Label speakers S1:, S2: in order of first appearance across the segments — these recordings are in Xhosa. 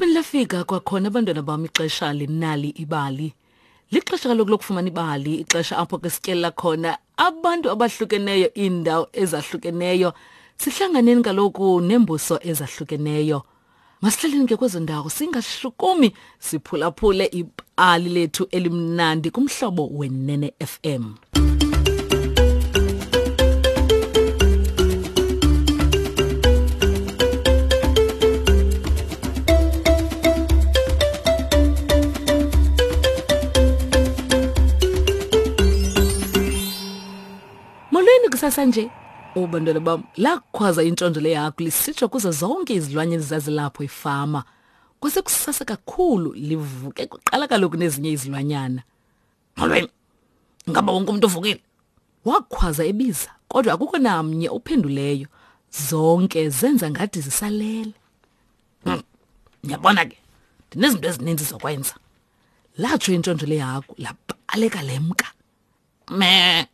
S1: Laphinde lafika kwakhona abantwana bam ixesha linali ibali. Lixesha kaloku lokufumana ibali, ixesha apho ke sityelela khona abantu abahlukeneyo, iindawo ezahlukeneyo. Sihlanganeni kaloku neembuso ezahlukeneyo. Masihlaleni ke kwezo ndawo singashukumi siphulaphule ibali lethu elimnandi kumhlobo wenene FM. Molweni kusasa nje. Oh bantwana bam, lakhwaza intshontsho lehagu lisitsho kuzo zonke izilwanyana ezazilapho efama. Kwasekusasa kakhulu livuke kuqala kaloku nezinye izilwanyana. Molweni. Ngaba wonke umuntu uvukile? Wakhwaza ebiza, kodwa akukho namnye ophenduleyo. Zonke zenza ngathi zisalele. Hmm. Ngiyabona ke. Ndinezinto ezininzi zokwenza. Latsho intshontsho lehagu labaleka lemka. Me.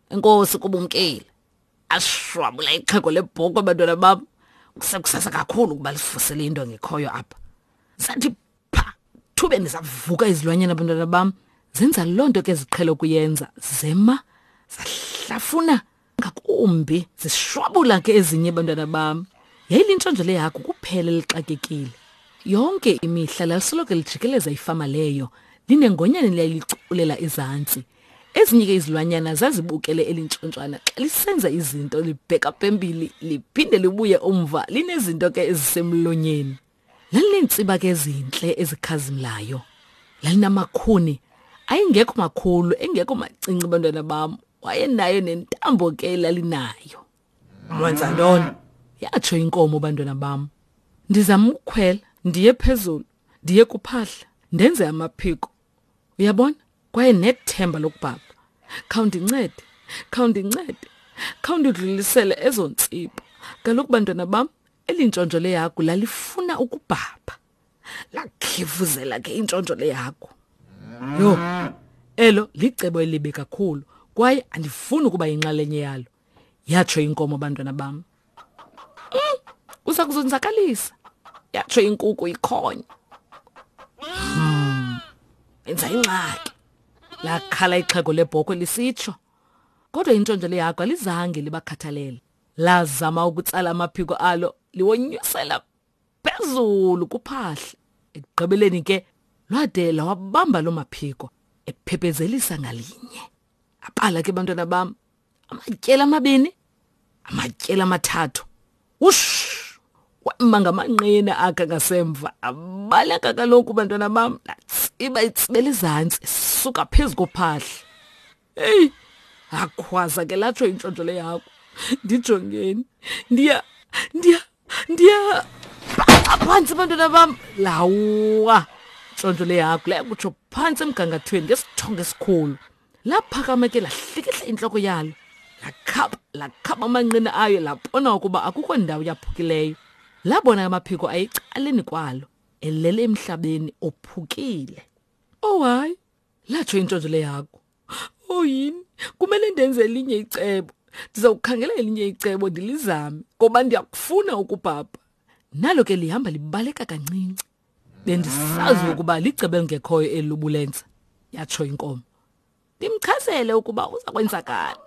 S1: Inkosi kubumkile. Ashwabula ixhego lebhoko abantwana bam. Kusekusasa kakhulu ukuba lisivusele into engekhoyo apha. Sathi pha thubeni zavuka izilwanyana abantwana bam. Zenza loo nto ke ziqhele ukuyenza. Zema zahlafuna ngakumbi zishwabula ke ezinye abantwana bam. Yayilintshontsho lehagu kuphela elixakekile. Yonke imihla lalisoloko lijikeleza ifama leyo linengonyane liyaliculela ezantsi. Ezinye ke izilwanyana zazibukele elintshontshwana xa lisenza izinto libheka phambili liphinde libuye umva linezinto ke ezisemlonyeni. Lalineentsiba ke ezintle ezikhazimlayo. Lalinamakhuni ayengekho makhulu engekho macinci bantwana bam. Wayenayo nentambo ke lalinayo. Wenza ntoni? Yatsho inkomo bantwana bam. Ndizama ukukhwela ndiye phezulu ndiye kuphahla ndenze amaphiko. Uyabona? Kwaye nethemba lokubhabha. Khawundincede, khawundincede, khawundidlulisele ezo ntsipho. Kaloku bantwana bam, eli ntshontsho lehagu lalifuna ukubhabha. Lakhivuzela ke intshontsho lehagu. Yho, elo licebo elibi kakhulu kwaye andifuni ukuba yinxalenye yalo. Yatsho inkomo bantwana bam. Mm, uza kuzonzakalisa. Yatsho inkuku ikhonya. Hmm. Enza ingxaki. Lakhala ixhego lebhokhwe lisitsho. Kodwa intshontsho lehagu alizange libakhathalele. Lazama ukutsala amaphiko alo liwonyusela phezulu kuphahla. Ekugqibeleni ke lwade lawabamba loo maphiko ephephezelisa ngalinye. Aqala ke bantwana bam amatyeli amabini amatyeli amathathu wush wema ngamanqina akhe ngasemva abaleka kaloku bantwana bam latsiba itsibela izantsi suka phezu kophahla heyi akhwaza ke latsho intshontsho le yakho ndijongeni ndiya ndiya ndiya phantsi bantwana bam lawa ntshontsho le yakho layakutsho phantsi emgangathweni ngesithongo esikhulu Laphakama ke lahlikihla intloko yalo. Lakhaba, lakhaba amanqina ayo labona ukuba akukho ndawo yaphukileyo. Labona amaphiko ayecaleni kwalo, elele emhlabeni ophukile. Oh hayi, latsho intshontsho lehagu. Oh yini, kumele ndenze elinye icebo. Ndiza kukhangela elinye icebo ndilizame ngoba ndiyakufuna ukubhabha. Nalo ke lihamba libaleka kancinci. Bendisazi ukuba licebo elingekhoyo eli lobulenza, yatsho inkomo. Ndimchazele ukuba uza kwenzakala.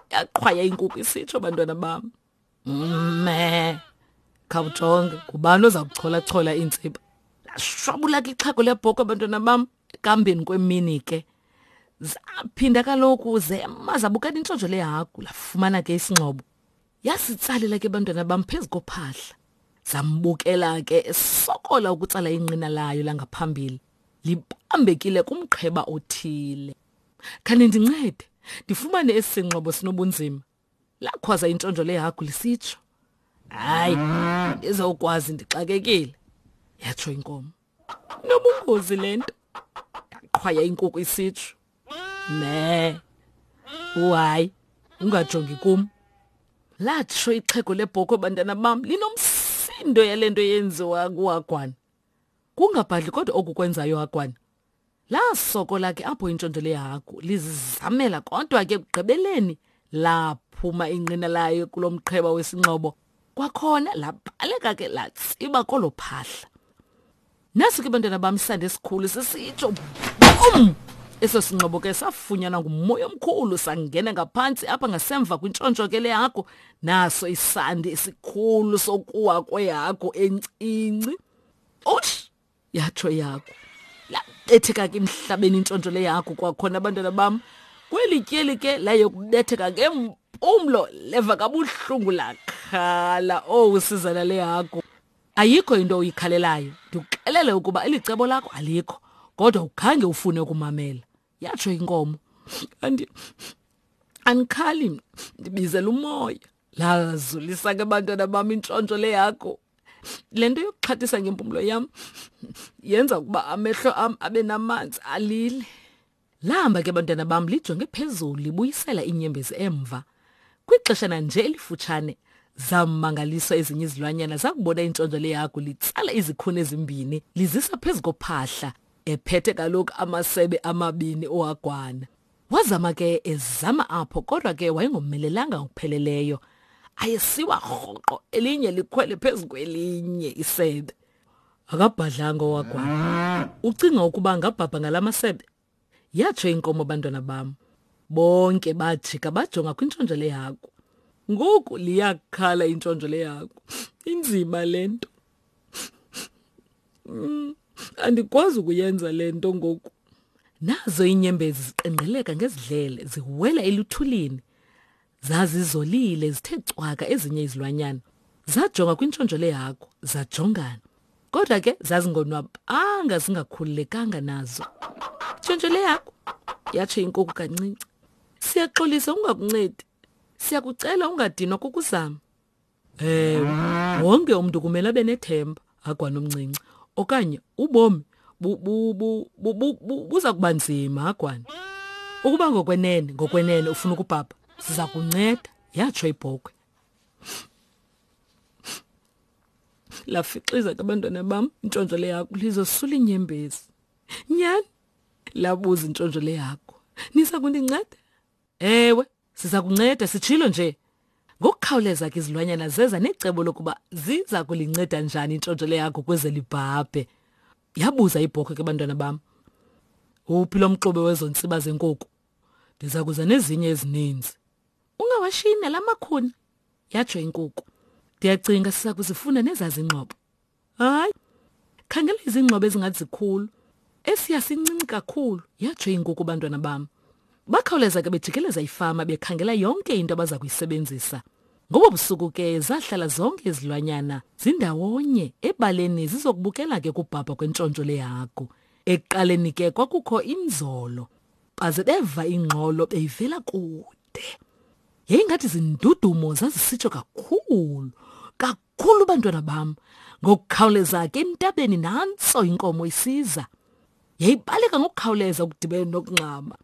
S1: Yaqhwaya inkukhu isitsho bantwana bam. Me. Khawujonge, ngubani oza kuchola-chola iintsiba? Lashwabula ke ixhego lebhokhwe bantwana bam ekambeni kwemini ke. Zaphinda kaloku zema zabukela intshontsho lehagu lafumana ke isingxobo. Yasitsalela ke bantwana bam phezu kophahla. Zambukela ke esokola ukutsala inqina layo langaphambili libambekile kumqheba othile. Khanindincede ndifumane esi singxobo sinobunzima. Lakhwaza intshontsho lehagu lisitsho. Hayi, ndizawukwazi ndixakekile, yatsho inkomo. Nobungozi le nto, yaqhwaya inkukhu isitsho. Me, uhayi, ungajongi kum. Latsho ixhego lebhokhwe bantwana bam linomsindo yale nto yenziwa kuhagwana. Kungabhadli kodwa oku kwenzayo hagwana. Lasokola ke apho intshontsho lehagu lizizamela kodwa ke ekugqibeleni laphuma inqina layo kulo mqheba wesingxobo. Kwakhona labaleka ke latsiba kolo phahla. Nasi ke bantwana bam isandi esikhulu sisitsho bum! Eso singxobo ke safunyanwa ngumoya omkhulu sangena ngaphantsi apha ngasemva kwintshontsho ke lehagu. Naso isandi esikhulu sokuwa kwehagu encinci. Ush! Yatsho ihagu. Labetheka ke emhlabeni intshontsho lehagu kwakhona abantwana bam. Kweli tyeli ke layokubetheka ngempumlo leva kabuhlungu lakhala. Owu sizana lehagu. Ayikho into oyikhalelayo. Ndikuxelele ukuba eli cebo lakho alikho, kodwa ukhange ufune ukumamela. Yatsho inkomo. Andi andikhali mna, ndibizela umoya. Lazulisa ke bantwana bam intshontsho le yakho. Le nto yokuxhathisa ngempumlo yam yenza ukuba amehlo am abe namanzi alile. Lahamba ke bantwana bam lijonge phezulu libuyisela iinyembezi emva. Kwixeshana nje elifutshane zammangaliswa ezinye izilwanyana zakubona intshontsho lehagu litsala izikhuni ezimbini lizisa phezu kophahla ephethe kaloku amasebe amabini ohagwana. Wazama ke ezama apho kodwa ke wayengomelelanga ngokupheleleyo. Ayesiwa rhoqo elinye likhwele phezu kwelinye isebe. Akabhadlanga owagwana. Ucinga ukuba angabhabha ngala masebe? Yatsho inkomo bantwana bam. Bonke bajika bajonga kwintshontsho lehagu. Ngoku liyakhala intshontsho lehagu. Inzima le nto. Andikwazi ukuyenza le nto ngoku. Nazo iinyembezi ziqengqeleka ngezidlele ziwela eluthulini. Zazizolile zithe cwaka ezinye izilwanyana. Zajonga kwintshontsho lehagu, zajongana. Kodwa ke zazingonwabanga zingakhululekanga nazo. Ntshontsho lehagu, yatsho inkuku kancinci. Siyaxolisa ungakuncedi. Siyakucela ungadinwa kukuzama. Ewe, wonke umntu kumele abe nethemba, Hagwana omncinci, okanye ubomi buza kuba nzima, Hagwana. Ukuba ngokwenene, ngokwenene ufuna ukubhabha, siza kunceda, yatsho ibhokhwe. Lafixiza ke abantwana bam intshontsho lehagu lizosula iinyembezi. Nyhani? Labuza intshontsho lehagu. Niza kundinceda? Ewe, siza kunceda sitshilo nje. Ngokukhawuleza ke izilwanyana zeza necebo lokuba ziza kulinceda njani intshontsho lehagu ukuze libhabhe. Yabuza ibhokhwe ke bantwana bam. Uphi lo mxube wezo ntsiba zenkuku? Ndiza kuza nezinye ezininzi. Ungawashiyi nala makhuni, yatsho inkuku. Ndiyacinga siza kuzifuna nezazingxobo. Hayi, khangela izingxobo ezingathi zikhulu. Esiya sincinci kakhulu, yatsho inkuku bantwana bam. Bakhawuleza ke bejikeleza ifama bekhangela yonke into abaza kuyisebenzisa. Ngobo busuku ke zahlala zonke izilwanyana zindawonye ebaleni zizokubukela ke kubhabha kwentshontsho lehagu. Ekuqaleni ke kwakukho inzolo. Baze beva ingxolo beyivela kude. Yayingathi zindudumo zazisitsho kakhulu, kakhulu bantwana bam. Ngokukhawuleza ke entabeni nantso inkomo isiza. Yayibaleka ngokukhawuleza ukudibene nokungxama.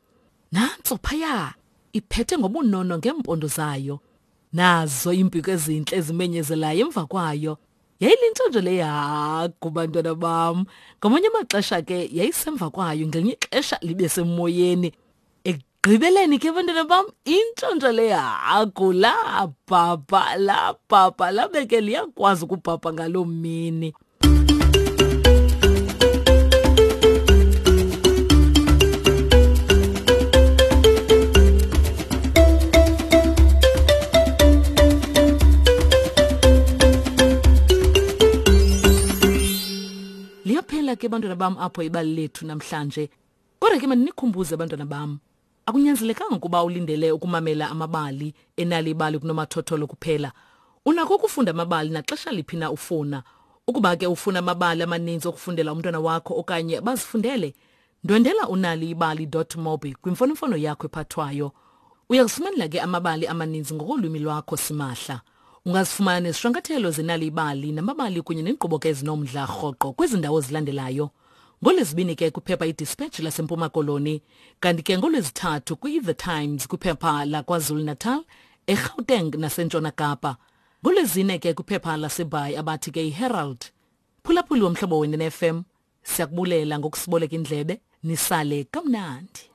S1: Nantso phaya iphethe ngobunono ngeempondo zayo. Nazo iimpiko ezintle ezimenyezelayo emva kwayo. Yayilintshontsho lehagu bantwana bam. Ngamanye amaxesha ke yayisemva kwayo, ngelinye ixesha libe semoyeni. Ekugqibeleni ke bantwana bam, intshontsho lehagu labhabha, labhabha, labe ke liyakwazi ukubhabha ngaloo mini. Liyaphela ke bantwana bam apho ibali lethu namhlanje. Kodwa ke mandinikhumbuze bantwana bam, akunyanzelekanga ukuba ulindele ukumamela amabali enali ibali kunomathotholo kuphela. Unako ukufunda amabali naxesha liphi na ufuna. Ukuba ke ufuna amabali amaninzi okufundela umntwana wakho okanye bazifundele, ndwendela unaliibali.mobi kwimfonomfono yakho ephathwayo. Uyakufumanela ke amabali amaninzi ngokolwimi lwakho simahla. Ungazifumana nezishwankathelo zenali ibali namabali kunye neenkqubo ke ezinomdla rhoqo kwezi ndawo zilandelayo. NgoLwezibini ke kwiphepha iDispatch laseMpuma Koloni, kanti ke ngoLwezithathu kwi-The Times kwiphepha laKwaZulu-Natal, eGauteng naseNtshona Kapa. NgoLwezine ke kwiphepha laseBhayi abathi ke iHerald. Phulaphuli womhlobo wenene FM, siyakubulela ngokusiboleka indlebe, nisale kamnandi.